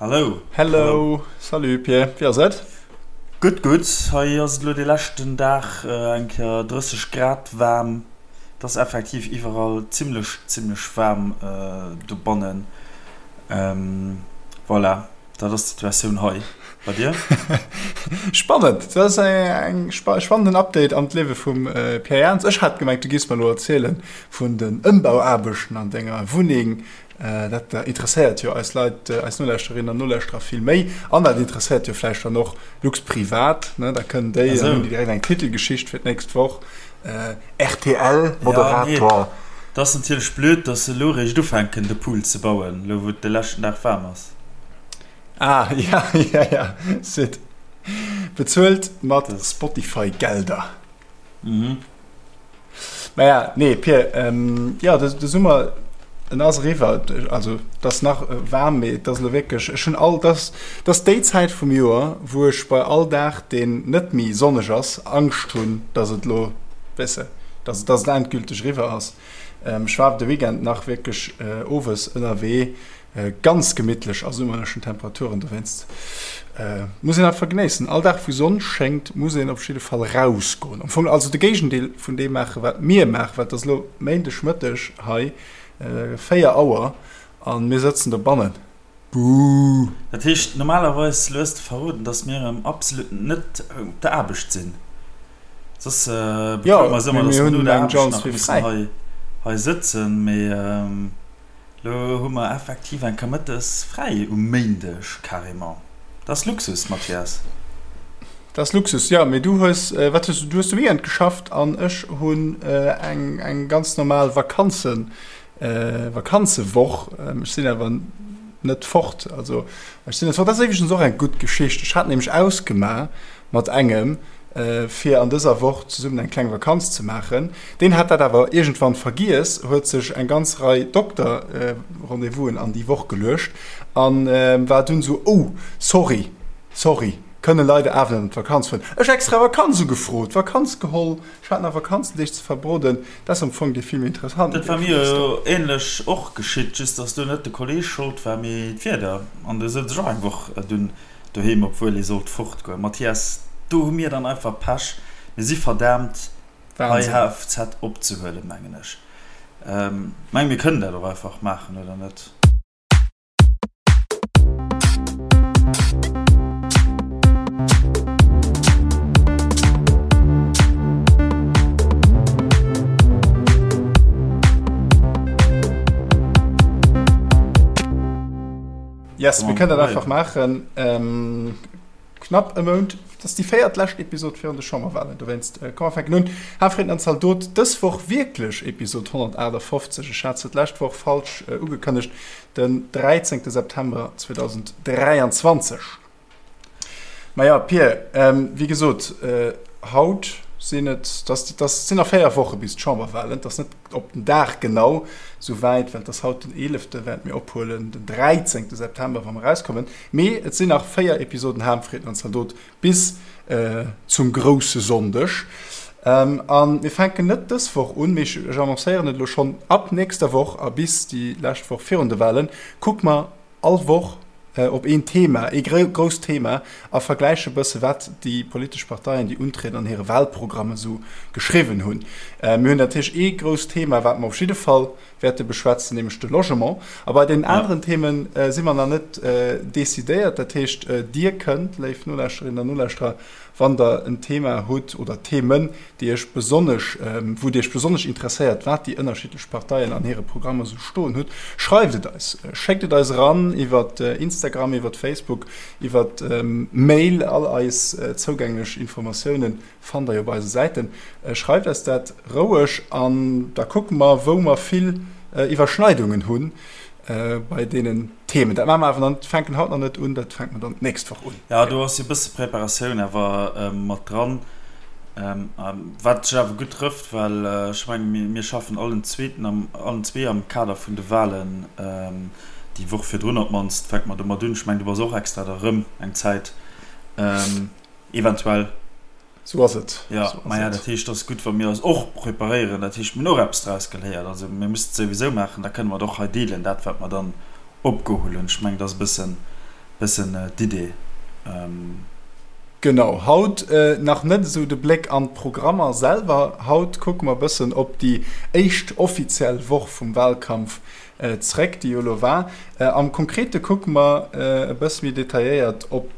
Hallo. Hello. Salut Pierre, wéi ass et? Gutt, gutt. Hei ass et elo de leschten Dag eng Kéier 30 Grad waarm. Et ass effektiv iwwerall zimmlech, zimmlech waarm dobannen. Voilà, dat ass d'Situatioun hei. Bei dir? Spannend! Dat ass eng spannenden Update an d'Liewe vum Pierre Jans. Ech hat gemengt, du giffs mer elo erzielen vun den Ëmbauaarbechten an denger Wunneng. Dat interesséiert jo eis Leit, eis Nolauschterinnen an Nolauschterer vill méi. An dat interesséiert jo vläicht dann och Luxprivat, ne? Da kënnen déi, dann hunn déi direkt eng Titelgeschicht fir d'nächst Woch. RTL-Moderator. Ja, nee, dat ass natierlech blöd, dass se elo eréischt ufänken, de Pool ze bauen, elo wou et de leschten Dag waarm ass. Ah, ja, ja, ja, Sid. Bezuelt mat Spotify-Gelder. Mhm. Naja, nee, Pir, ähm, ja, de, de Summer, en ass eriwwer. Also, et ass nach waarm, mee et ass elo wierklech, ech hunn all, dat ass déi Zäit vum Joer, wou ech bei all Dag, deen net méi sonneg ass, Angscht hunn, dass et elo, weess de, dass, dass et endgülteg eriwwer ass. Ähm, ech war de Weekend nach wierklech owes ënnerwee, Ganz gemittlech a summerlechen Temperaturen, dowéinst muss een einfach genéissen. All Dag wou Sonn schéngt muss een op jidde Fall rausgoen. Am Fong also de Géigendeel vun deem maachen wat mir maachen, well et ass elo Méindeg Mëtteg hei, 4 Auer an mir sëtzen dobannen. Buuh! Dat heescht normalerweis, lo hues de verroden, dass mir erëm absolut net op der Aarbecht sinn. Soss bekloe mer eis ëmmer, dass mer no der Aarbecht nach mussen hei sëtzen, mee. Lo hu mer effektiv eng Kéier mëttes fräi um Méindeg, carrément. Dat ass Luxus, Mathias. Dat ass Luxus, jo. Mee du hues, wat hues du, du hues de Weekend geschafft an ech hunn eng, eng ganz normal Vakanzen, Vakanzewoch. Ech sinn awer net fort, also ech sinn net fort. Dat ass iwwregens och eng gutt Geschicht. Ech hat nämlech ausgemaach mat engem, fir an dëser Woch zesummen eng kleng Vakanz ze maachen. Deen hat dat awer iergendwann vergiess, huet sech eng ganz Rei Dokter-Rendez-vousen an déi Woch geluecht a war dunn esou, Oh, sorry, sorry, kënne leider awer net an d'Vakanz fueren. Ech extra Vakanz ugefrot, Vakanz geholl, ech hat nach Vakanzendeeg ze verbroden. Dat ass am Fong dee vill méi interessanten Dat war Deel mir vun der jo Story. änlech och geschitt, just dass do net de Kolleeg Schold war, mee d'Wieder. An du souz ech och eng Woch dunn Doheem, obwuel ee sollt fortgoen. Mathias, do hu mir dann einfach Pech. Mir si verdaamt, hei HFZ opzehuelen, mengen ech. Mengen, mir kënnen dat och einfach maachen, oder net? Yes, mir kënnen dat einfach maachen. Ähm, knapp e Mount, dat ass déi véiert lescht Episod virun de Chamberwahlen. Dowéinst, äh, komm, mer fänken un. Hafreden an Zaldot, dës Woch wierklech Episod 158. Ech hat se d'lescht Woch falsch äh, ugekënnegt, den 13. September 2023. Maja, Pir, ähm, wéi gesot, äh, haut sinn et, das, das sinn nach 4 Woche bis d'Chamberwahlen, das net op den Dag genau sou wäit, well et ass haut den 11., während mir ophuelen, den 13. September, wa mer erauskommen. Mee et sinn nach 4 Episoden Harmfrieden an Zaldot bis äh, zum grousse Sonndeg. Ähm, a mir fänken net dës Woch un, mee ech, ech annoncéieren et elo schonn, ab nächster Woch a bis déi lescht Woch virun de Wahlen, kucke mer all Woch op een Thema, ee grousst Thema a vergläiche bësse wat déi politesch Parteien, déi untrieden, an hire Wahlprogrammen esou geschriwwen hunn. Mir hunn natierlech ee grousst Thema, wat mer op jidde Fall wäerte beschwätzen, nämlech de Logement. A bei deenen aneren Themen si mer nach net decidéiert. Dat heescht, Dir kënnt, léif Nolauschterinnen an Nolauschterer, Wann der en Thema hutt oder Themen, déi Iech besonnesch, wou Dir Iech besonnesch interesséiert, wat déi ënnerschiddlech Parteien an hire Programmer esou stoen hutt, schreift et eis. Schéckt et eis eran iwwer Instagram, iwwer Facebook, iwwer Mail. All eis zougänglech Informatioune fannt der jo op eise Säiten. Schreift eis dat roueg an da kucke mer, wou mer vill Iwwerschneidungen hunn. Bei deenen Themen. Dat maache mer awer dann, fänken haut nach net un, dat fänke mer dann d'nächst Woch un. Jo, do ass jo e bësse Preparatioun awer mat dran, wat sech awer gutt trëfft, well ech menge mir schaffen allen zweeten am, allen zwee am Kader vun de Wahlen, déi Woch virdrun op d'mannst fänke mer domat un. Ech mengen, du bass och extra da rëm eng Zäit eventuell. Sou ass et. Jo, maja, dat heescht, et ass gutt, wa mir eis och preparéieren. Dat heescht, mir hunn och eppes draus geléiert. Also mir mussen et souwisou maachen, da kënne mer et och hei deelen, dat wat mer dann opgeholl hunn. Ech mengen, dat ass e bëssen, Bëssen d'Idee. Genau, haut nach net esou de Bléck an d'Programmer selwer. Haut kucke mer bëssen op déi éischt offiziell Woch vum Wahlkampf zréck, déi jo elo war. Am Konkrete kucke mer e bësse méi detailléiert op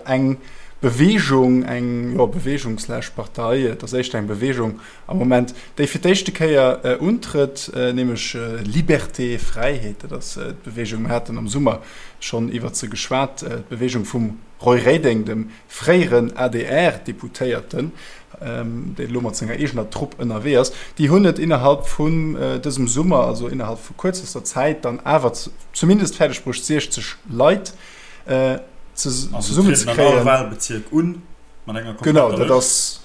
eng Beweegung, eng, jo, Beweegung slash Partei, et ass éischter eng Beweegung am Moment, déi fir d'éischte Kéier untrëtt, nämlech Liberté, Fräiheet, dat ass d'Beweegung. Mir haten am Summer schonn iwwert se geschwat, d'Beweegung vum Roy Reding, dem fréieren ADR-Deputéierten, deen elo mat senger eegener Trupp ënnerwee ass. Déi hunn et innerhalb vun dësem Summer, also innerhalb vu kuerzester Zäit, dann awer zumindest fäerdeg bruecht, 60 Leit zesummenzekréien. Also trieden an all Wahlbezierk un mat enger kompletter Lëscht.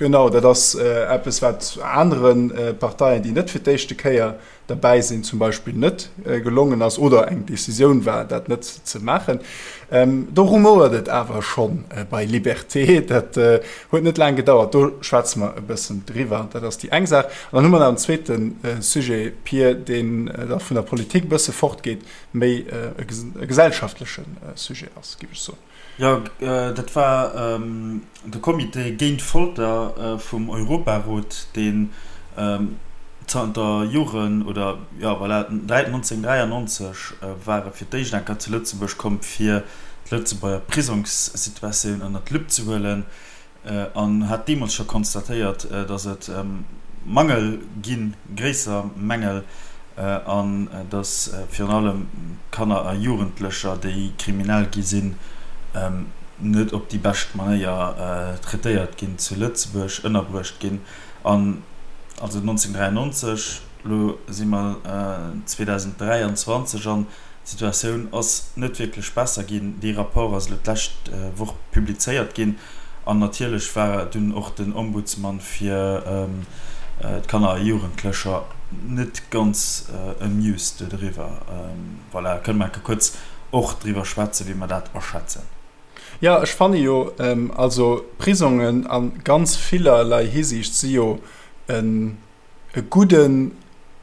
Genau, dat ass eppes, wat anere Parteien, déi net fir d'éischte Kéier derbäi sinn, zum Beispill net gelongen ass oder eng Decisioun war, dat net ze maachen. Do rumouert et awer scho bei Liberté. Dat huet net laang gedauert. Do schwätze mer e bëssen driwwer. Dat ass déi eng Saach. An dann hu mer nach en zweete Sujet, Pir, deen da vun der Politik e bësse fortgeet, méi e gesellschaftleche Sujet ass, géif ech soen. Jo, dat war de Comité géint Folter vum Europarot, deen zanter Joren, oder jo voilà, 1993 war e fir d'éischt eng Kéier zu Lëtzebuerg komm, fir d'Lëtzebuerger Prisongssituatioun ënnert d'Lupp ze huelen. An hat deemools scho konstatéiert, datt et Mangel ginn, gréisser Mängel, an datt virun allem Kanner a Jugendlecher, déi kriminell gi sinn, net op déi bescht Manéier traitéiert ginn zu Lëtzebuerg, ënnerbruecht ginn. An also 1993, elo si mer 2023, an D'Situatioun ass net wierklech besser ginn. Dee Rapport ass elo d'lescht Woch publizéiert ginn. An natierlech war dunn och den Ombudsman fir d'Kanner a Jugendlecher net ganz amused doriwwer. Voilà, kënne mer enke kuerz och driwwer schwätzen, wéi mer dat aschätzen. Jo, ech fanne jo, also Prisongen a ganz villerlei Hisiicht si jo en e gudde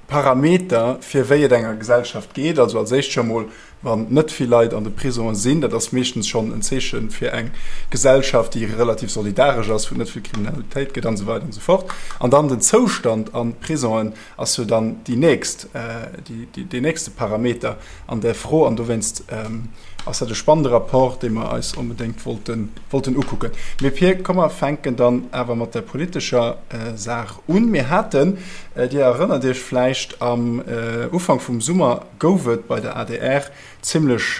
Parameter fir wéi et enger Gesellschaft geet. Also als éischt scho mol, wann net vill Leit an de Prisonge sinn, dat ass meeschtens schonn en Zeeche fir eng Gesellschaft, déi relativ solidaresch ass, wou et net vill Kriminalitéit gëtt an esou weider an esou fort. An dann den Zoustand an Prisongen ass jo dann déi nächst, deen nächste Parameter an där Fro. An dowéinst ass dat e spannende Rapport, dee mer eis onbedéngt wollten, wollten ukucken. Mee Pir, komm mer fänken dann awer mat der politescher Saach un. Mir haten, Dir erënnert Iech vläicht, am Ufank vum Summer gouf et bei der adr zimlech,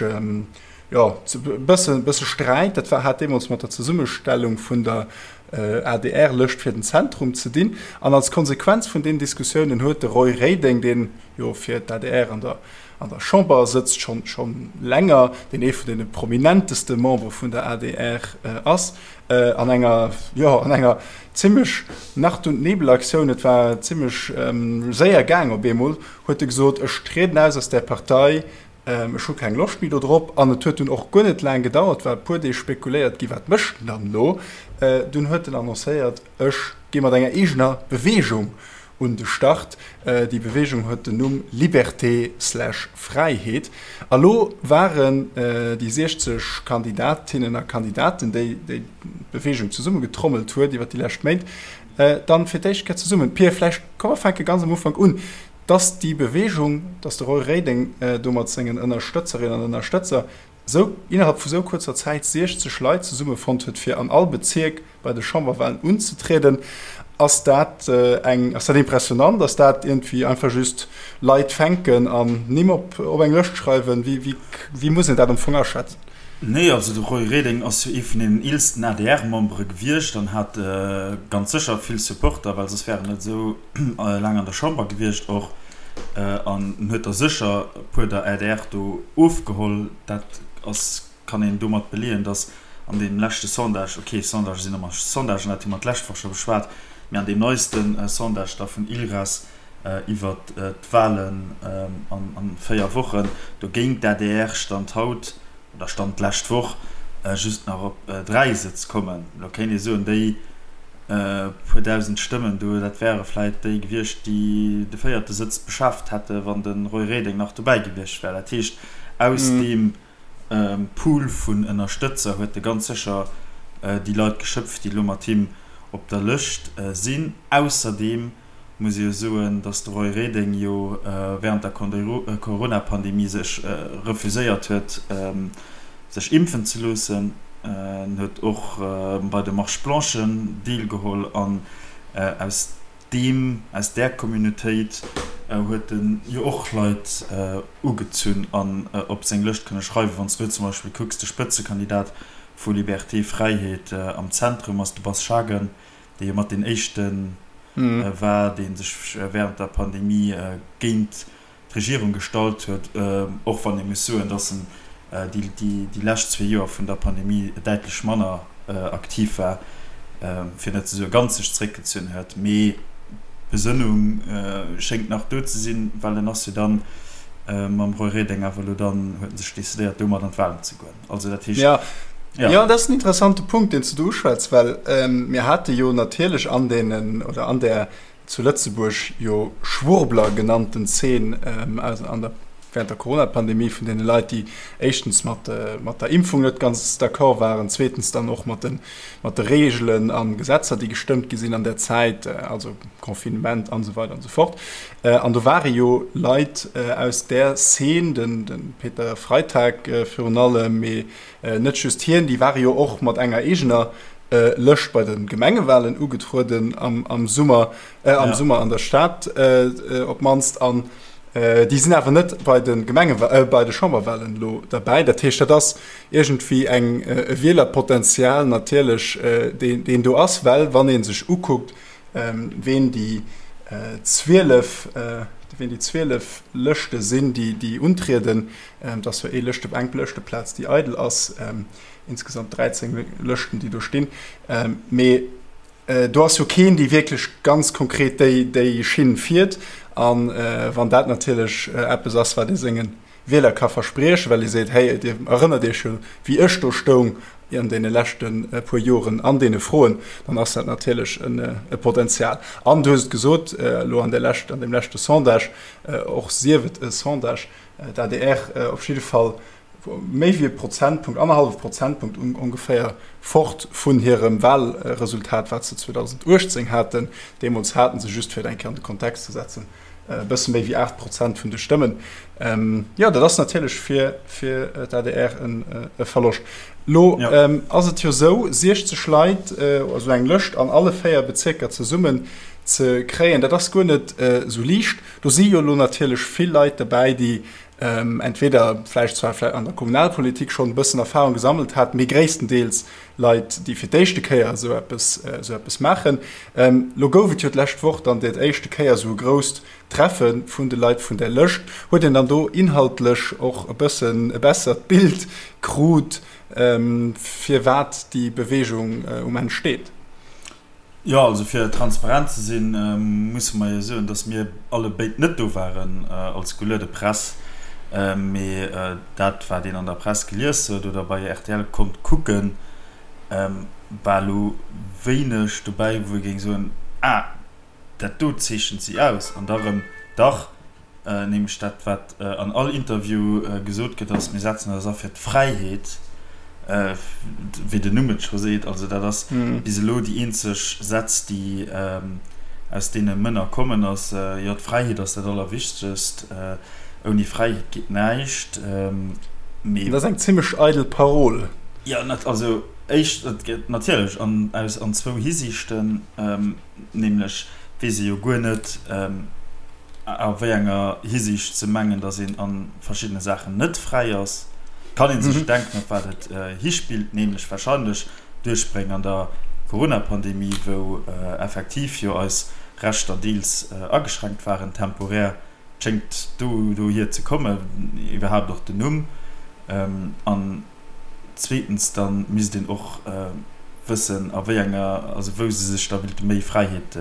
jo, e bësse, bësse Sträit. Dat war, hat deemools mat der Zesummestellung vun der ADR-Lëscht fir den Zentrum ze dinn. An als Konsequenz vun deenen Diskussiounen huet de Roy Reding, deen jo fir d'ADR an der an der Chamber sëtzt, schonn schonn länger, deen ee vun deene prominenteste Membere vun der adr ass, an enger, jo, an enger zimmlech Nacht und Nebel-Aktioun, et war zimmlech séier gaang op eemol, huet e gesot, ech trieden aus aus där Partei, ech hu keng Loscht méi do drop. An et huet dunn och guer net laang gedauert, war e puer Deeg spekuléiert gi, wat mécht en dann elo? Dunn huet en annoncéiert, ech gi mat enger eegener Beweegung un de Start. Déi Beweegung huet den Numm Liberté slash Fräiheet. A lo waren déi 60 Kandidatinnen a Kandidaten, déi déi Beweegung zesummegetrommelt huet iwwer déi lescht Méint, dann fir d'éischt Kéier zesummen. Pir, vläicht komm mer fänke ganz am Ufank un. Dass déi Beweegung, dass de Roy Reding do mat sengen Ënnerstëtzerinnen an Ënnerstëtzer sou innerhalb vu sou kuerzer Zäit 60 Leit zesummefonnt huet fir an all Bezierk bei de Chamberwahlen unzetrieden, ass dat eng, ass dat impressionant, ass dat iergendwéi einfach just Leit fänken an Nimm op op eng Lëscht schreiwen? Wéi wéi wéi muss een dat am Fong aschätzen? Nee, also de Roy Reding ass jo ee vun deenen eelsten ADR-Membere gewiescht an hat ganz sécher vill Supporter, well soss wär en net esou laang an der Chamber gewiescht och. An en huet der sécher e puer der adr do ofgeholl. Dat ass, kann een domat beleeën, datt an deem leschte Sondage, okay, Sondagë sinn ëmmer Sondagen, dat hu mer d'lescht Woch scho beschwat, mee an deem neiste Sondage da vun ILRAS iwwert d'Wahlen an 4 Wochen, do géing d'ADR Stand haut, oder Stand d'lescht Woch, just nach op 3 Sëtz kommen. Elo kéint ee soen, déi puer dausend Stëmmen do, dat wäre vläit déi gewiescht, déi de véierte Sëtz beschaaft hätte wann de Roy Reding nach dobäi gewiescht wär. Dat heescht, aus deem. Pool vun Ënnerstëtzer huet e ganz sécher déi Leit geschöpft, déi elo mat him op der Lëscht sinn. Ausserdeem muss ee jo soen, datt de Roy Reding jo wärend der Corona-Pandemie sech refuséiert huet, sech impfen ze loossen. En huet och bei de Marches blanchen deelgeholl an aus deem, aus där Communautéit huet en jo och Leit ugezunn an op seng Lëscht kënne schreiwen. Wann s du zum Beispill kucks, de Spëtzekandidat vu Liberté Fräiheet am Zentrum ass de Bas Schagen, dee jo mat deen éischte war, dee sech wärend der Pandemie géint d'Regierung gestallt huet, och wann ee muss soen, dass en déi lescht zwee Joer vun der Pandemie däitlech manner aktiv war, fir net ze soe ganz sech zeréckgezunn huet. Mee d'Besënnung schéngt nach do ze sinn, well en ass jo dann mam Roy Reding awer elo dann, huet en sech decidéiert, domat an d'Wahlen ze goen. Also dat heescht. Ja. Ja, dat ass en interessante Punkt, deen s du do uschwätz, well mir hate jo natierlech an deenen oder an där zu Lëtzebuerg jo Schwurbler genannten Zeen an der während der Corona-Pandemie vun deene Leit, déi éischtens mat mat der Impfung net ganz d'accord waren, zweetens dann och mat de mat de Reegelen a Gesetzer, déi gestëmmt gi sinn an där Zäit, also Confinement an esou weider an esou fort. An do ware jo Leit aus där Szene, den de Peter Freitag virun allem, mee net just hien, déi ware jo och mat enger eegener Lëscht bei de Gemengewalen ugetrueden am Summer, am Summer an der Stad op d'mannst. An déi sinn awer net bei de Gemenge bei de Chamberwalen elo derbäi. Dat heescht, dat ass iergendwéi eng e Wielerpotenzial natierlech, deen deen do ass, well wann ee sech ukuckt, ween déi 12 ween déi 12 Lëschte sinn, déi déi untrieden, et ass jo ee Lëschte eng Lëschteplaz, déi eidel ass, insgesamt 13 Lëschten, déi do stinn. Mee do ass jo keen, dee wierklech ganz konkret déi, déi Schinn fiert. A wann dat natierlech eppes ass, wat ee senge Wieler ka verspriechen, well ee seet, Hey, Dir erënnert Iech jo, wéi ech do stoung an deene leschte puer Joren an deene Froen, dann ass dat natierlech e Potenzial. An du hues et gesot, elo an där lescht, an deem leschte Sondage, och sief et e Sondage, d'ADR op jidde Fall méi wéi e Prozentpunkt, annerhallwe Prozentpunkt ongeféier, fort vun hirem Wahlresultat, wat se 2018 haten. Deemools hate se, just fir et eng Kéier an de Kontext ze setzen, e bësse méi wéi 8 Prozent vun de Stëmmen. Jo, dat ass natierlech fir fir d'ADR e Verloscht. Lo ass et jo esou, 60 Leit, also eng Lëscht an alle 4 Bezierker zesummen ze kréien, dat ass guer net esou liicht. Do si jo elo natierlech vill Leit derbäi, déi entweder vläicht zwar an der Kommunalpolitik schonn e bëssen Erfahrung gesammelt haten, mee gréisstendeels Leit, déi fir d'éischte Kéier esou eppes, esou eppes maachen. Lo gouf et jo d'lescht Woch dann dat éischte Kéier esou e grousst Treffe vun de Leit vun där Lëscht. Huet een dann do inhaltlech och e bëssen e bessert Bild krut, firwat déi Beweegung um Enn steet? Jo, also fir transparent ze sinn, musse mer jo soen, datt mir alle béid net do waren als geluede Press, mee dat wat een an der Press gelies huet oder bei rtl konnt kucken, war elo wéineg dobäi, wou ee géing soen, ah, dat do zeechent si aus. An da rëm, dach, Nämlech dat, wat an all Interview gesot gëtt, ass, Mir setzen eis a fir d'Fräiheet, wéi den Numm et scho seet. Also dat ass bis elo déi eenzeg Sätz, déi aus deene Mënner kommen ass, Jo, d'Fräiheet ass dat Allerwichtegst, ouni Fräiheet geet näischt. Mee. Dat ass eng zimmlech eidel Parol. Jo, also éischt, et gëtt natierlech an aus an zwou Hisiichten, nämlech weess ee jo guer net, A wéi enger Hisiicht ze mengen, datt een a verschiddene Saachen net fräi ass, kann ee sech denken, op wat et hispillt, nämlech warscheinlech d'Duerchbréng an der Corona-Pandemie, wou effektiv jo eis Rechter deels ageschränkt waren, temporär. Et schéngt do dohier ze kommen, iwwerhaapt och den Numm. An Zweetens, da misst een och wëssen, a wéi enger, also wou se sech da wéilte méi Fräiheet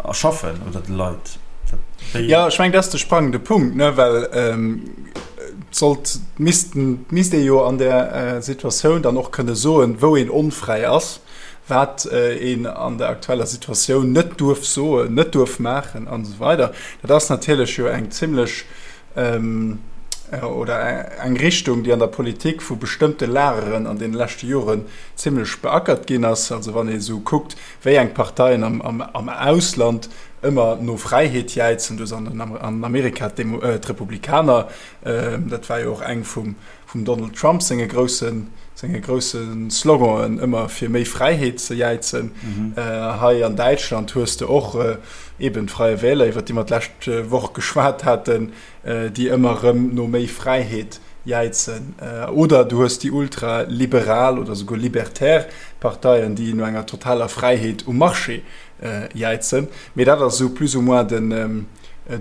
erschaffen oder de Leit. Dat wéi. Jo, ech mengen, dat ass de sprangende Punkt, ne, well et sollt, missten, misst ee jo an där Situatioun dann och kënne soen, wou een onfräi ass, wat een an der aktueller Situatioun net duerf soen, net duerf maachen an esou weider. Dat ass natierlech jo eng zimlech. oder eng Richtung, déi an der Politik vu bestëmmte Lageren an deene leschte Joren zimlech beackert ginn ass. Also wann ee sou kuckt, wéi eng Parteien am Ausland ëmmer no Fräiheet jäizen, do sinn an Amerika d'Republikaner, dat war jo och eng vum Donald Trump senge grousse senge grousse Sloganen, ëmmer fir méi Fräiheet ze jäizen. Hei an Däitschland hues de och eben d'Freie Wähler, iwwer déi mer d'lescht Woch geschwat haten, déi ëmmer erëm no méi Fräiheet jäizen, oder du hues déi ultraliberal oder souguer libertär Parteien, déi no enger totaler Fräiheet um Marché jäizen. Mee dat ass esou plus ou moins den,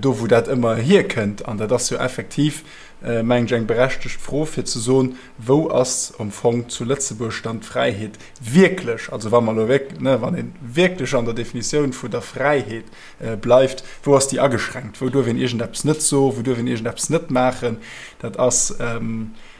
do wou dat ëmmer hierkënnt. An dat ass jo effektiv, mengen ech, eng berechtegt Fro fir ze soen, Wou ass am Fong zu Lëtzebuerg dann d'Fräiheet wierklech? Also wa mer elo wierk-, ne, wann ee wierklech an der Definitioun vun der Fräiheet bleift, wou ass déi ageschränkt, wou duerf een iergendeppes net soen, wou duerf een iergendeppes net maachen, dat ass,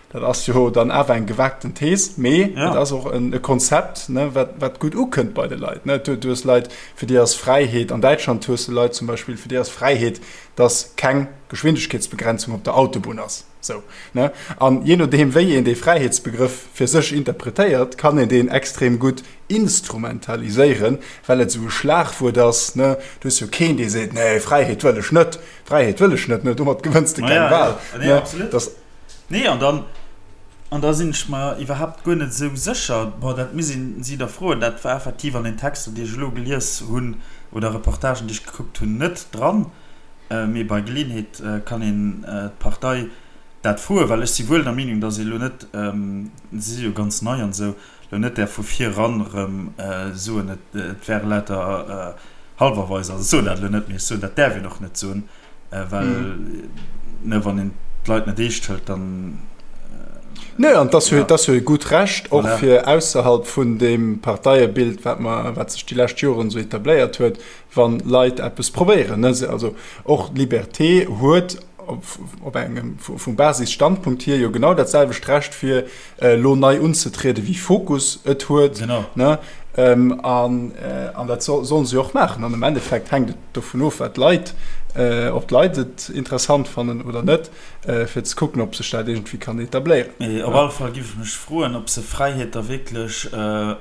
dat ass jo dann awer eng gewagten Thees, mee et ass och e Konzept, ne, wat, wat gutt ukënnt bei de Leit. Ne. Du hues Leit, fir déi ass Fräiheet, an Däitschland hues de Leit zum Beispill, fir déi ass Fräiheet, dass keng Geschwindegkeetsbegrenzung op der Autobunn ass. Sou, ne? An jee nodeem, wéi een dee Fräiheetsbegrëff fir sech interpretéiert, kann een deen extrem gutt instrumentaliséieren, well et esou e Schlagwuert ass, ne? Du hues jo keen, dee seet, Nee, Fräiheet wëll ech net, Fräiheet wëll ech net, ne? Domat gewënns de keng Wal, ne? Dass. Nee, an dann, an da sinn ech mer iwwerhaapt guer net esou sécher, bon, dat muss een si da froen, dat war effektiv an den Texter, déi ech elo gelies hunn, oder Reportagen, déi ech gekuckt hunn, net dran. Mee bei Geleeënheet kann een d'Partei dat froen, well ech si wuel der Meenung, datt ee lo net, si si jo ganz nei an esou, lo net däerf vu vir eran erëm soen, et wäre lauter Halwerweiser. Also ech soen dat elo net, mee ech soen, dat däerf een och net soen, well, ne, wann een d'Leit net eescht hëlt, dann. Nee, an et ass jo, et ass jo e gutt Recht och fir ausserhalb vun deem Parteiebild, wat mer, wat sech déi lescht Joren esou etabléiert huet, Wann Leit eppes probéieren, ne, also och d'Liberté huet op engem vum Basisstandpunkt hier jo genau dat selwecht Recht fir elo nei unzetriede wéi Fokus et huet, ne, an an dat sollen se jo och maachen. An am Endeffekt hänkt et dovun of wat d'Leit, ob d'Leit et interessant fannen oder net. Fir ze kucken, ob sech dat iergendwéi kann etabléieren. Mee op alle Fall giff ech mech froen, ob se Fräiheet da wierklech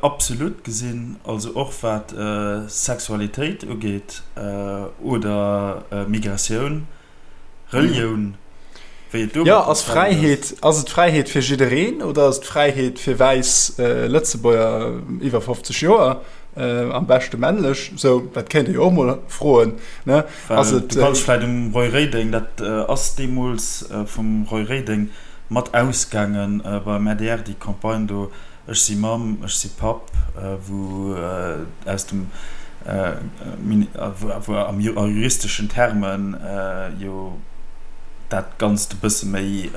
absolut gesinn, also och wat Sexualitéit ugeet oder Migratioun, Relioun, wéi et do mat der Fräiheet ass. Ass et Fräiheet fir jiddereen oder ass et Fräiheet fir wäiss Lëtzebuerger iwwer 50 Joer, am beschte männlech? Sou, dat kéint ee jo och mol froen, ne? Ass et. Du kanns vläit um Roy Reding, dat ass deemools vum Roy Reding mat ausgaange beim adr, déi Campagne do, Ech si Mamm, ech si Papp, wou aus dem, wou a juristeschen Termen jo dat Ganzt e bësse méi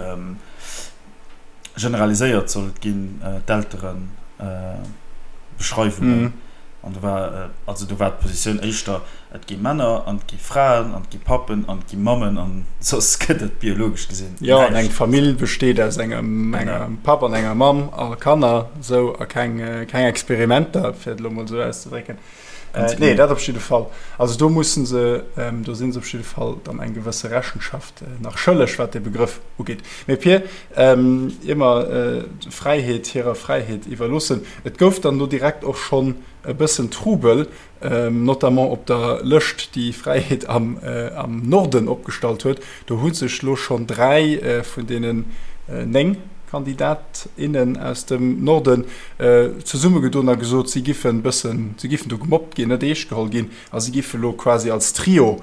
generaliséiert sollt ginn, d'Elteren. Beschreiwungen. An do war, also do war d'Positioun éischter, et gi Männer an et gi Fraen an et gi Pappen an et gi Mammen an soss gëtt et biologesch gesinn näischt. Jo, an eng Famill besteet aus engem, engem Papp an enger Mamm a Kanner, esou, a keng, keng Experimenter, fir et elo mol esou auszedrécken. Nee, dat op jidde Fall. Also do mussen se, do si se op jidde Fall dann eng gewësse Rechenschaft nach schëlleg, wat dee Begrëff ugeet. Mee Pir, ier mer d'Fräiheet hirer Fräiheet iwwerloossen, et gouf dann do direkt och schonn e bëssen Trubel, notamment op der Lëscht, déi Fräiheet am Norden opgestallt huet. Do hu sech elo schonn 3 vun deenen 9 Kandidat, innen aus dem Norden zesummegedoen a gesot, si giffen bëssen, si giffen do gemobbt ginn, net eescht geholl ginn a si giffe lo quasi als Trio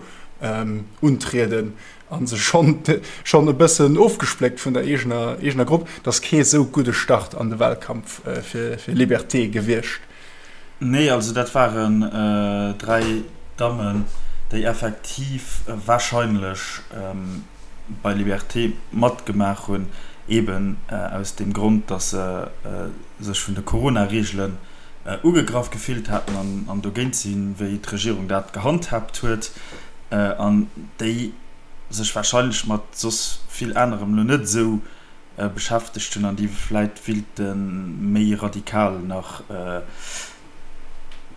untrieden a sech schonn schonn e bëssen ofgespléckt vun der eegener eegener Grupp. Et ass kee sou gudde Start an de Wahlkampf fir fir Liberté gewiescht. Nee, also dat waren 3 Dammen, déi effektiv wahrscheinlech bei Liberté matgemaach hunn, eben aus deem Grond, datt se sech vun de Corona-Reegelen ugegraff gefillt haten an dogéint sinn, wéi d'Regierung dat gehandhaabt huet, an déi sech warscheinlech mat soss vill anerem elo net esou beschäftegt hunn an déi vläit willte méi radikal nach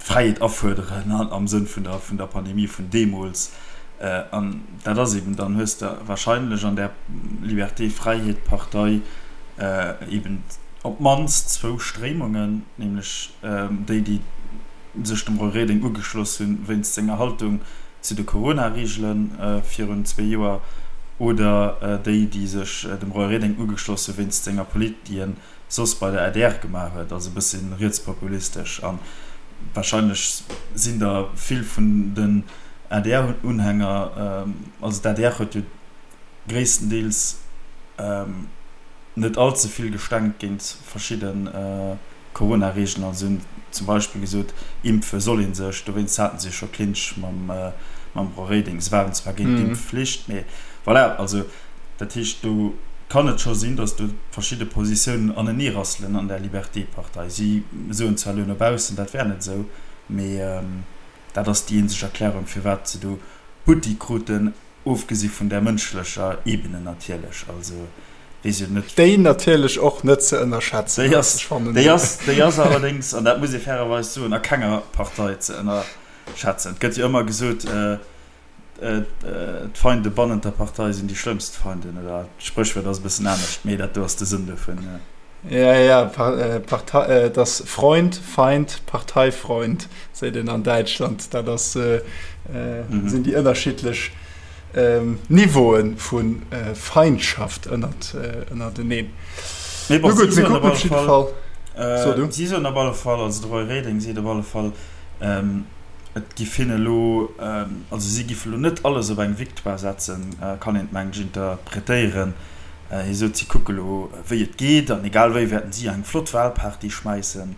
d'Fräiheet afuerderen am Sënn vun der Pandemie vun deemools. An dat ass eben, dann hues de wahrscheinlech an där Liberté-Fräiheet-Partei eben op d'mannst zwou Stréimungen, nämlech déi, déi sech dem Roy Reding ugeschloss hunn wéinst senger Haltung zu de Corona-Reegele virun zwee Joer, oder déi, déi sech dem Roy Reding ugeschloss hu wéinst senger Polit, déi en soss bei der adr gemaach huet, also e bëssi rietspopulistesch. A warscheinlech sinn der vill vun den ADR-Unhänger, also d'ADR huet jo gréisstendeels net all ze vill gestenkt géint verschidde Corona-Reegelen, also si hunn zum Beispill gesot, impfe soll ee sech, dowéinst haten se jo scho Clinch mam Roy Reding. Se waren zwar géint d'Impfflicht, mee voilà, also dat heescht do kann et scho sinn, datt do verschidde Positiounen aneneerasselen an der Liberté-Partei. Si soen zwar elo no baussen, dat wär net esou, mee dat ass déi eenzeg Erklärung, firwat se do Butti kruten, ofgesi vun där mënschlecher Ebene natierlech. Also weess jo net. Déi natierlech och net ze ënnerschätzen ass. Ech fannen. Déi ass, déi ass allerdéngs, an dat muss ee fairerweis soen, a kenger Partei ze ënnerschätzen. Et gëtt jo ëmmer gesot, D'Feinde bannent der Partei sinn déi schlëmmst Feinden, oder d'Spréchwuert ass e bëssen anescht, mee dat do ass de Sënn dovun. Ja, ja, Partei, et ass Freund, Feind, Parteifreund, seet een an Däitschland. Dat ass, sinn déi ënnerschiddlech Niveaue vu Feindschaft ënnert, ënnerteneen. Mee bon, si soen op alle Fall, si soen op alle Fall, also de Roy Reding seet op alle Fall, Et giff hinne elo, also si giffe elo net alles op eng Victoire setzen, kann een et mengen ech interpretéieren. Hie sot, si kucke elo wéi et geet an egal wéi wäerten si eng flott Wahlparty schmäissen.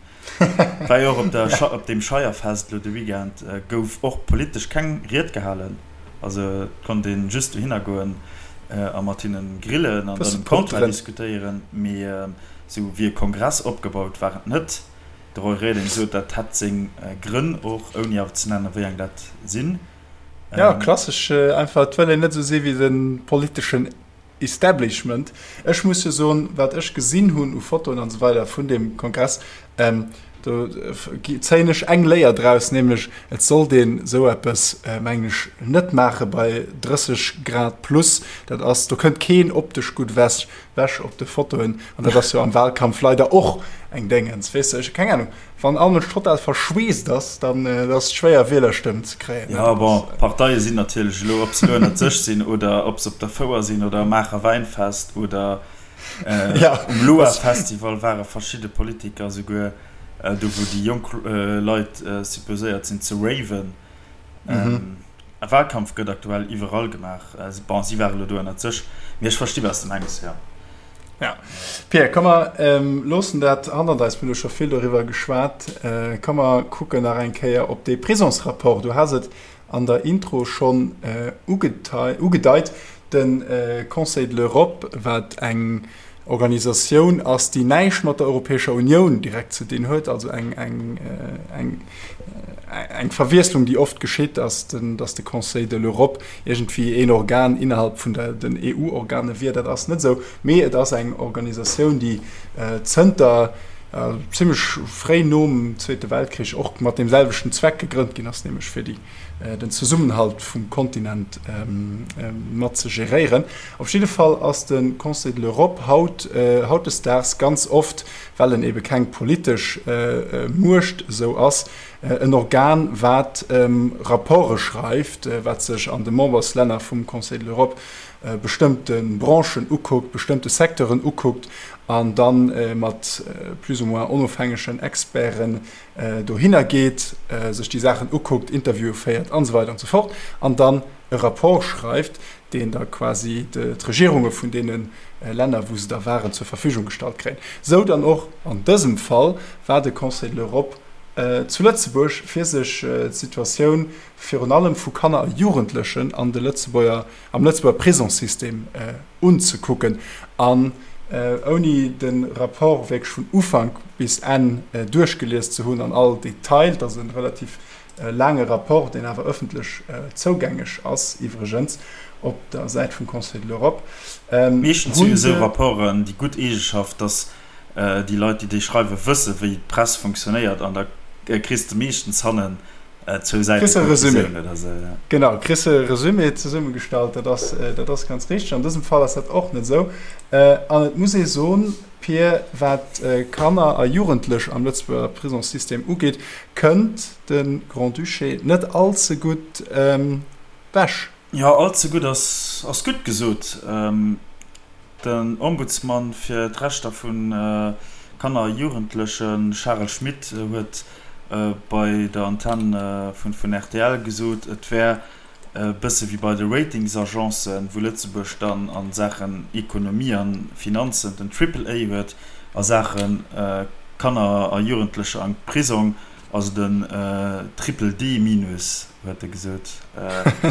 War jo och op der, op deem Scheierfest elo de Weekend gouf och politesch keng Ried gehalen. Also et konnt ee just dohinner goen a mat hinnen grillen an dann um Comptoir diskutéieren, mee esou wéi e Kongress opgebaut war et net. De Roy Reding sot, dat hätt seng Grënn och, ouni awer ze nennen, wéi eng dat sinn. Jo, klassesch einfach, et wëll een net esou si wéi de politeschen Establishment. Ech muss jo soen, wat ech gesinn hunn u Fotoen an esou weider vun deem Kongress, do zéien ech eng Léier draus, nämlech et sollt een esou eppes, mengen ech, net maache bei 30 Grad plus. Dat ass, do kënnt keen optesch gutt ewech. Wäsch op de Fotoen, an dat ass jo am Wahlkampf leider och eng Déngens, weess de, ech keng Ahnung, wann all Mënsch total verschweesst ass, dann ass et schwéier Wielerstëmmen ze kréien. Jo, bon, d'Parteie sinn natierlech elo, ob se elo ënnert sech sinn oder ob se op der Fouer sinn oder am Maacher Wäinfest oder um Loa-Festival ware verschidde Politiker souguer, do wou déi jonk Leit supposéiert sinn ze raven. E Wahlkampf gëtt aktuell iwwerall gemaach. Bon, si ware lo do ënnert sech, mee ech versti wat s de mengs, jo. Ja. Pierre, komm mer loossen dat hannert eis, mir hu scho vill doriwwer geschwat. Komm mer kucken nach eng Kéier op dee Prisonsrapport. Du has et an der Intro schonn ugedeit, de Conseil de l'Europe, wat eng Organisatioun ass, déi näischt mat der Europäescher Unioun direkt ze dinn huet, also eng, eng, eng, eng Verwiesslung, déi oft geschitt, ass, datt de Conseil de l'Europe iergendwéi een Organ innerhalb vun der, den EU-Organe wier. Dat ass net esou, mee et ass eng Organisatioun, déi zënter zimlech fréi nom Zweete Weltkrich och mat deem selwechten Zweck gegrënnt ginn ass, nämlech fir déi den Zesummenhalt vum Kontinent mat ze geréieren. Op jidde Fall ass de Conseil de l'Europe haut, hautdesdaags ganz oft, well en ebe keng politesch Muecht esou ass, en Organ, wat Rapporte schreift, wat sech an de Memberslänner vum Conseil de l'Europe bestëmmte Branchen ukuckt, bestëmmte Secteuren ukuckt an da mat plus ou moins onofhängegen Experten dohinner geet, sech déi Saachen ukuckt, Interviewe féiert an esou weider an esou fort an dann e Rapport schreift, deen da quasi d'Regierunge vun deene Länner, wou se da waren, zur Verfügung gestallt kréien. Esou dann och an dësem Fall war de Conseil de l'Europe zu Lëtzebuerg, fir sech d'Situatioun virun allem vu Kanner a Jugendlechen an de Lëtzebuerger, am Lëtzebuerger Prisongssystem unzekucken. An ouni de Rapport wierklech vun Ufank bis Enn duerchgelies ze hunn an all Detail, et ass e relativ laange Rapport, deen awer ëffentlech zougängeg ass iwwregens op der Säit vum Conseil de l'Europe, Meeschtens hu jo esou Rapporten déi gutt Eegeschaft, datt déi Leit, déi déi schreiwen, wësse wéi d'Press funktionéiert an da kriss de meeschtens hannen. Zwou Säite Kriss e Resumé. Konklusioun oder sou, ja. Genau, kriss e Resumé zesummegestallt, dat ass, dat ass ganz richteg. An dësem Fall ass dat och net esou. An et muss ee soen, Pir, wat Kanner a Jugendlech am Lëtzebuerger Prisongssystem ugeet, kënnt de Grand-Duché net all ze gutt ewech. Jo, all ze gutt ass, ass gutt gesot. Den Ombudsman fir d'Rechter vu Kanner a Jugendleche Charel Schmit huet bei der Antenn vun rtl gesot, et wär e bësse wéi bei de Ratingsagencen, wou Lëtzebuerg dann a Saachen Ekonomie a Finanzen den Triple A huet, a Saache Kanner a Jugendlecher am Prisong ass et en Triple D minus, huet e gesot.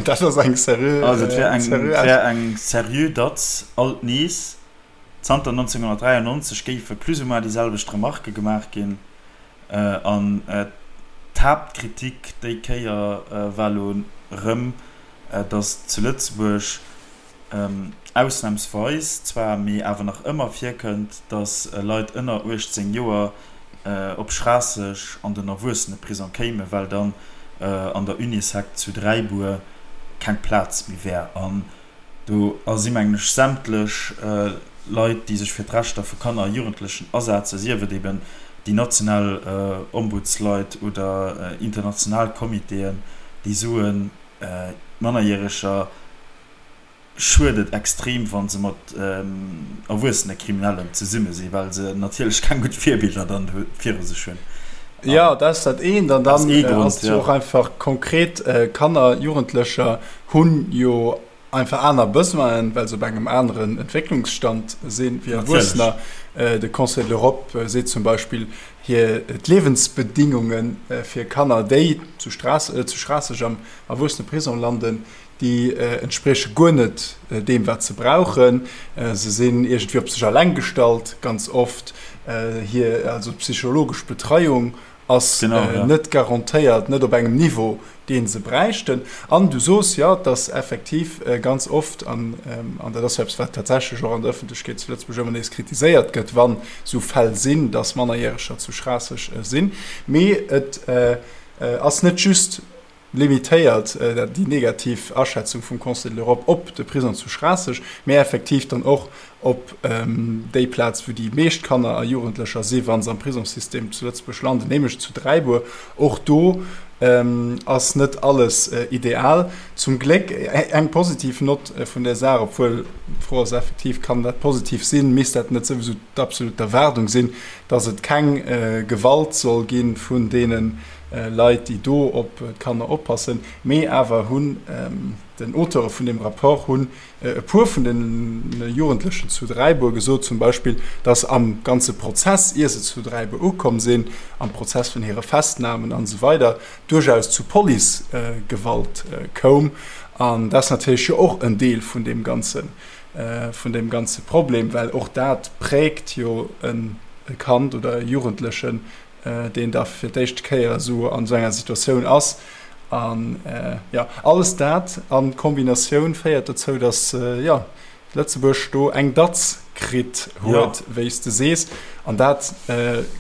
Dat ass eng seriö. Also et wär eng, et wär eng seriö Datz alt nees. Zanter 1993 géife plus ou moins déi selwecht Remarke gemaach ginn. An d'Haaptkritik déi Kéier war elo erëm, datt zu Lëtzebuerg ausnamsweis zwar, mee awer nach ëmmer virkënnt, datt Leit ënner 18 Joer op Schraasseg an den Erwuesseneprisong kéimen, well dann an der Unisec zu Dräibuer keng Plaz méi wär. An do si mengen ech sämtlech Leit, déi sech fir d'Rechter vu Kanner a Jugendlechen asetzen, sief et eben déi national Ombudsleit oder international Comitéen, déi soen, Mannerjäreger schued et extrem, wa se mat erwuessene Kriminellen zesumme sinn, well se natierlech keng gutt Virbiller dann viru sech hunn. Jo, dat ass dat eent. An dann ass et jo och einfach konkret, Kanner, Jugendlecher hunn jo einfach aner Besoinen, well se op engem aneren Entwécklungsstand sinn wéi Erwuessener. De Conseil de l'Europe seet zum Beispill, hir d'Liewensbedingunge fir Kanner, déi zu Schraasseg am Erwuesseneprisong landen, déi entsprieche guer net deem, wat se brauchen. Se sinn iergendwéi op sech eleng gestallt ganz oft. Hir also d'psychologesch Betreiung ass net garantéiert, net op engem Niveau, dee se bräichten. An du sos jo, dass effektiv ganz oft, an dat ass jo eppes, wat tatsächlech och an der Ëffentlechkeet zu Lëtzebuerg ëmmer nees kritiséiert gëtt, wann esou Fäll sinn, dass Mannerjäreger zu Schraasseg sinn. Mee et ass net just limitéiert déi negativ Aschätzung vum Conseil de l'Europe op de Prisong zu Schraasseg, mee effektiv dann och op déi Plaz, wou déi meescht Kanner a Jugendlecher si wa se am Prisongssystem zu Lëtzebuerg landen, nämlech zu Dräibuer. Och do ass net alles ideal. Zum Gléck eng positiv Nott vun där Saach, obwuel d'Fro ass effektiv, kann dat positiv sinn, misst dat net souwisou d'absolut Erwaardung sinn, datt et keng Gewalt soll gi vun deene Leit, déi do op d'Kanner oppassen, mee awer hunn den Auteure vun deem Rapport hunn e puer vun de Jugendlechen zu Dräibuer gesot zum Beispill, datt am ganze Prozess, ier se zu Dräibuer ukomm sinn, am Prozess vun hire Festnamen an esou weider duerchaus zu Policegewalt koum. An dat ass natierlech jo och en Deel vun deem ganze, vun deem ganze Problem, well och dat präägt jo e Kand oder e Jugendlechen deen da fir d'éischte Kéier esou an esou enger Situatioun ass. An jo, alles dat a Kombinatioun féiert dozou, datt jo Lëtzebuerg do eng Datz kritt huet, wéi s de sees. An dat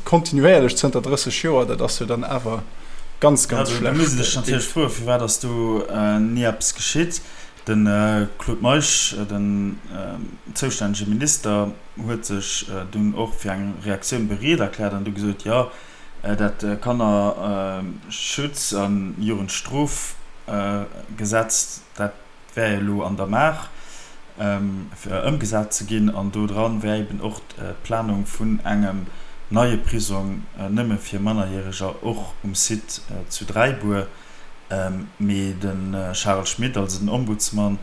kontinuéierlech zënter 30 Joer, dat ass jo dann awer ganz, ganz schlecht. Da muss ee sech natierlech froen, firwat ass do ni eppes geschitt? De Claude Meisch, den zoustännege Minister, huet sech dunn och fir eng Reaktioun bereet erkläert an du gesot, jo, dat Kannerschutz a Jugendstrofgesetz, dat wär jo elo an der Maach, fir ëmgesat ze ginn. An do dran wär eben och d'Planung vun engem neie Prisong nëmme fir Mannerjäreger och um Site zu Dräibuer. Mee de Charel Schmit, also den Ombudsman,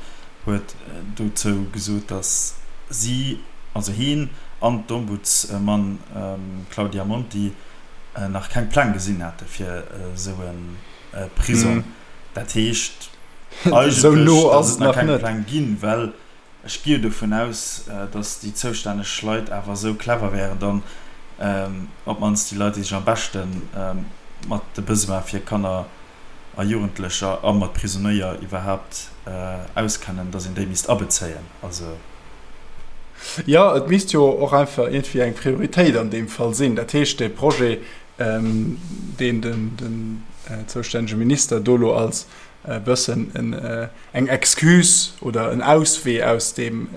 huet dozou gesot, datt si, also hien an d'Ombudsman Claudia Monti, nach keng Pläng gesinn hätte fir esou e Prisong. Dat heescht eigentlech, datt et nach keng Pläng ginn, well Ech gi jo dovun aus, datt déi zoustänneg Leit awer esou clever wären, dann op d'mannst déi Leit, déi sech am beschte mat de Besoin fir Kanner a Jugendlecher a mat Prisonéier iwwerhaapt auskennen, datt een déi misst abezéien. Also. Jo, et misst jo och einfach iergendwéi eng Prioritéit an deem Fall sinn. Dat heescht, dee Projet. Deen den zoustännege Minister do lo als e bëssen eng Excuse oder en Auswee aus deem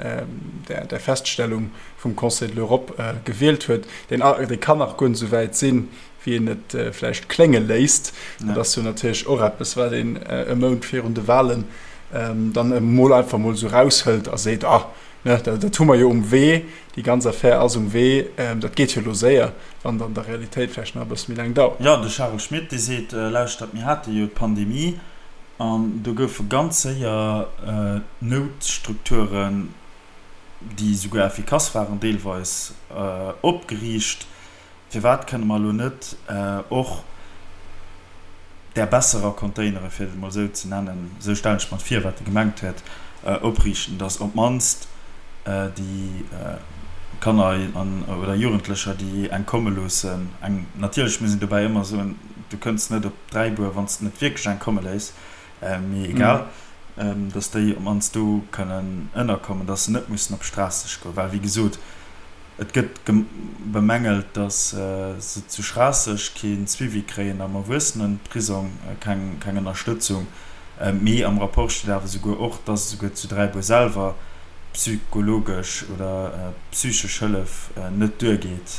der Feststellung vum Conseil de l'Europe gewielt huet, deen dee kann nach guer net esou wäit sinn, wéi een et vläicht klénge léisst. Dat ass jo natierlech och eppes, wat een e Mount virun de Wahlen dann emol einfach emol esou eraushëlt a seet, Ah, Ne, dat hu mer jo um Wee, déi ganz Affär ass um Wee, dat geet jo elo séier, wann et an der Realitéit vläicht nach e bësse méi laang dauert. Jo, de Charel Schmit, dee seet, Lauschtert, mir hate jo d'Pandemie an do goufe ganz séier Noutstrukturen, déi souguer effikass waren deelweis, opgeriicht. Firwat kënne mer elo net och där besserer Containere, fir et emol esou ze nennen, esou stellen ech mer et vir, wat e gemengt huet, opriichten, datt op d'mannst déi Kanner an oder Jugendlecher, déi eng komme loossen, eng, natierlech muss een dobäi ëmmer soen, du kënns net op Dräibuer, wann s de net wierklech eng komme léiss, mee egal, datt déi op d'mannst do kënnen ënnerkommen, datt se net mussen op Schraasseg goen, well wéi gesot, Et gëtt bemängelt, datt se zu Schraasseg kee Suivi kréien, am Erwuessenenprisong keng Ënnerstëtzung. Mee am Rapport steet awer esouguer och, datt esouguer zu Dräibuer selwer psychologesch oder psychesch Hëllef net duergeet.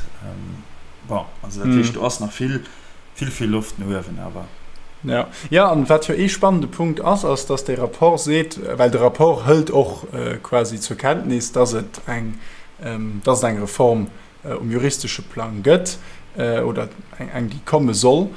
Bon, also dat heescht, do ass nach vill, vill, vill Loft no uewen awer. Jo, jo, an wat jo ee spannende Punkt ass, ass, datt dee Rapport seet, well de Rapport hëlt och quasi zur Kenntnis, datt et eng, datt et eng Reform um juristesche Plang gëtt oder eng, déi komme soll,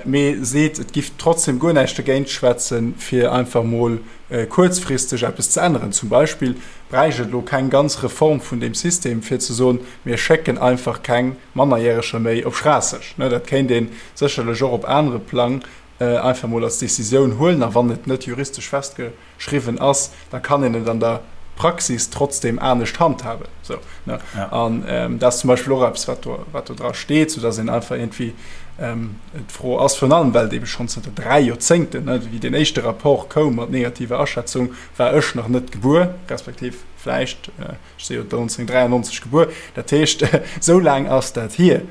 mee seet, et giff trotzdem guer näischt dergéint schwätzen, fir einfach mol kuerzfristeg eppes ze änneren. Zum Beispill bräicht et elo keng ganz Reform vun deem System, fir ze soen, mir schécken einfach keng Mannerjäreger méi op Schraasseg. Dat kéint ee sécherlech och op anere Plang einfach mol als Decisioun huelen. A wann et net juristesch festgeschriwwen ass, da kann een et an der Praxis trotzdem anescht handhaben. Sou, ne? An dat ass zum Beispill och eppes, wat do, wat do dra steet, soudass een einfach iergendwéi d'Fro ass, virun allem well et eebe schonn zënter 3 Joerzéngten, ne, wéi deen éischte Rapport koum mat negativer Aschätzung, war ech nach net gebuer, respektiv vläicht, Ech si jo 1993 gebuer, dat heescht, esou laang ass dat hier,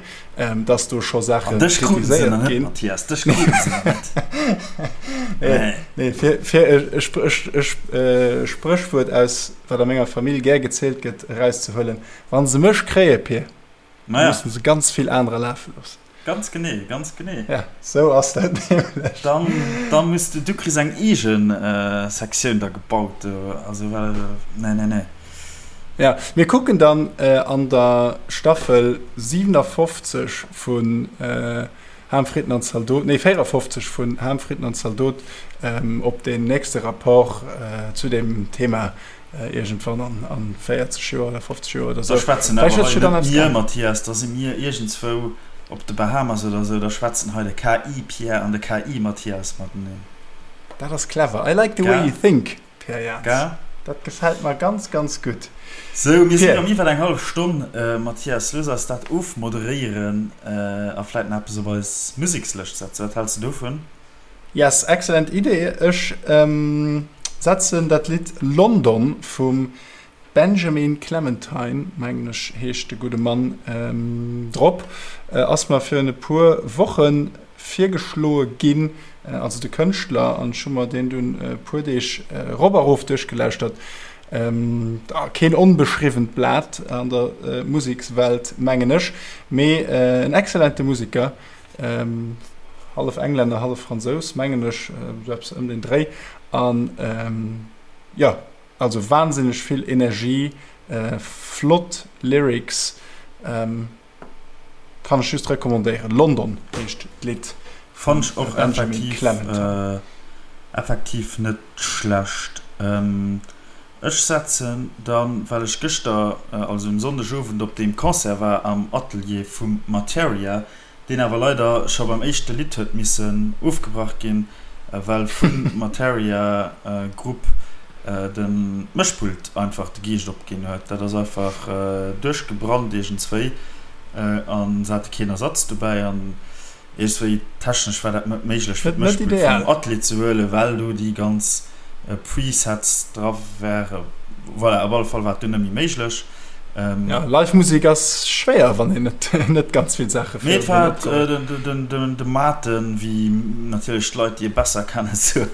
dass do scho Saache kritiséiert ginn. Mathias, dech kruten se nach net. Nee, nee, fir, fir e Spréchwuert aus, wat a menger Famill gär gezielt gëtt, erauszehuelen, Wa se mech kréie, Pir, da musse se ganz vill anerer lafe loossen. Ganz genee, ganz genee. Ja, sou ass dat nämlech. Dann, dann muss du, du kriss eng eegen Sektioun da gebaut do, also well, nee, nee, nee. Ja, mir kucken dann an der Staffel 57 vun Ham, Fritten an Zaldot, nee 54 vun Ham, Fritten an Zaldot op deen nächste Rapport zu deem Thema Iergendwann an 40 Joer oder 50 Joer oder sou. Da schwätzen awer hei net mir, Mathias, da si mir iergendzwou op de Bahamas oder sou, da schwätzen hei de KI-Pierre an de KI-Mathias mateneen. Dat ass clever. I like the way you think, Pierre Jans. Dat gefält mer ganz, ganz gutt. Sou, mir sinn erëm iwwer eng hallef Stonn, Mathias. Looss eis dat ofmoderéieren a vläit nach eppes op eis Musekslëscht setzen. Wat häls de dovun? Yes, excellent Idee. Ech setzen dat Lidd London vum Benjamin Clementine, mengen ech heescht de gudde Mann, drop. Ass mer virun e puer Woche virgeschloe ginn, also de Kënschtler, an ech hu mer deen dunn e puer Deeg erop a rof duerchgelauschtert. Keen onbeschriwwent Blat an der Musekswelt, mengen ech, mee en excellente Museker. Hallef Englänner, hallef Fransous, mengen ech, esou eppes ëm den Dréi. An jo, also wahnsinneg vill Energie, flott Lyrics, kann ech just recommandéieren. London heescht d'Lidd vum Fannt ech och Benjamin effektiv, Clementine. effektiv net schlecht. Ech setzen dann, well ech gëschter, also um Sonndegowend op deem Concert war am Atelier vum Marteria, deen awer leider scho beim éischte Lidd huet missen ofgebrach ginn, well vum Marteria Grupp den Mëschpult einfach de Geescht opginn huet. Dat ass einfach duerchgebrannt iergendswéi an se hate keen Ersatz dobäi an Iergendswéi technesch war dat net méiglech fir d'Mëschpult vum Atelier ze huelen, well do déi ganz Presets dra waren. Voilà, op alle Fall war et dunn net méi méiglech. Ja, live Musek ass schwéier, wann een net, net ganz vill Saache Mee et war den, den, de Maarten, wéi natierlech d'Leit, déi e besser kennen, soen,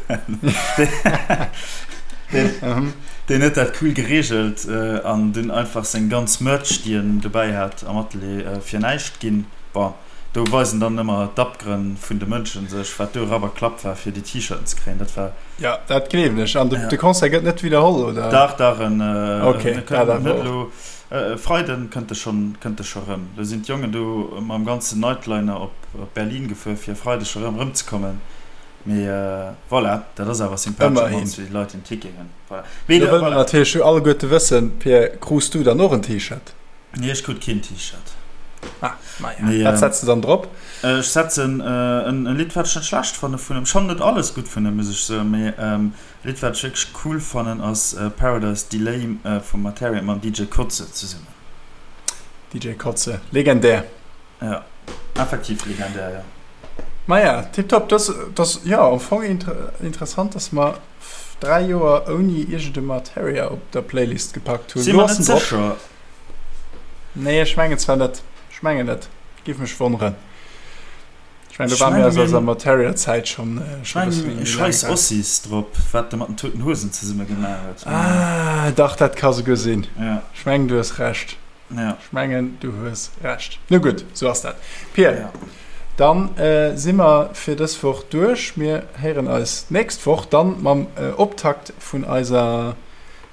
deen, deen huet dat cool gereegelt an dunn einfach seng ganz Merch, déi en dobäi hat am Atelier, fir näischt ginn. Bon, do weisen dann ëmmer d'Abgrënn vun de Mënschen sech, wat do Rapp a Klapp war, fir déi T-Shirten ze kréien. Dat war. Jo, dat gleewen ech. An de Concert gëtt net widderholl, oder? Dach, dach, en kënnt net elo. E Freiden kënnt e schonn, kënnt e scho rëm. Lo sinn d'Jongen do mam ganzen Nightliner op Berlin gefuer, fir e Freideg scho rëm erëmzekommen. Mee voilà, dat ass awer sympathesch, op d'mannst fir déi Leit, déi en Ticket hunn. Voilà. Mee da wëlle mer natierlech alleguerte wëssen, Pir, krus du dann och en T-Shirt? Nee, ech krut keen T-Shirt. Ah, maja. Nee, Wat setz de dann drop? Ech setzen en Lidd, wat ech net schlecht fanne vun em. Ech fannen net alles gutt vun em, muss ech soen, mee e Lidd, wat ech wierklech cool fannen, ass Paradise Delay vum Marteria mam DJ Koze zesummen. DJ Koze, legendär. Ja, effektiv legendär, jo. Maja, tiptop. Dat ass, jo, am Fong interessant, dass mer 3 Joer ouni iergend e Marteria op der Playlist gepackt hunn. Si mer net sécher. Nee, ech mengen zwar net. Ech mengen net. Giff mech wonneren. Ech mengen, do ware mir aus eiser Marteria-Zäit schonn e Ech bësse mengen, méi laang Scheiss raus. Ossis drop, wat de mat den Toten Hosen zesumme gemaach huet. Ah, dach, dat ka souguer sinn. Ja. Ech mengen, du hues Recht. Ja. Ech mengen, du hues Recht. Nu gutt, sou ass dat. Pir, Ja. dann si mer fir dës Woch duerch. Mir héieren eis d'nächst Woch dann mam Optakt vun eiser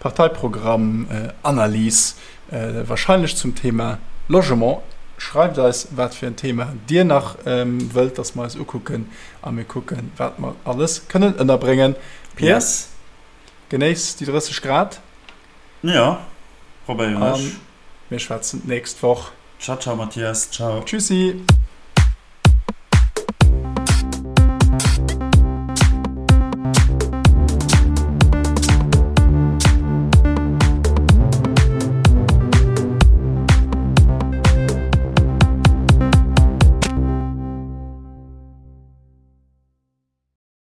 Parteiprogramm-Analys, warscheinlech zum Thema Logement. Schreift eis, wat fir en Thema Dir nach wëllt, dass mer eis ukucken a mir kucken, wat mer alles kënnen ënnerbréngen. Pir, Yes. genéiss déi 30 Grad. Jo, probéieren ech. A mir schwätzen d'nächst Woch. Ciao, ciao Mathias, ciao. Tschüssi.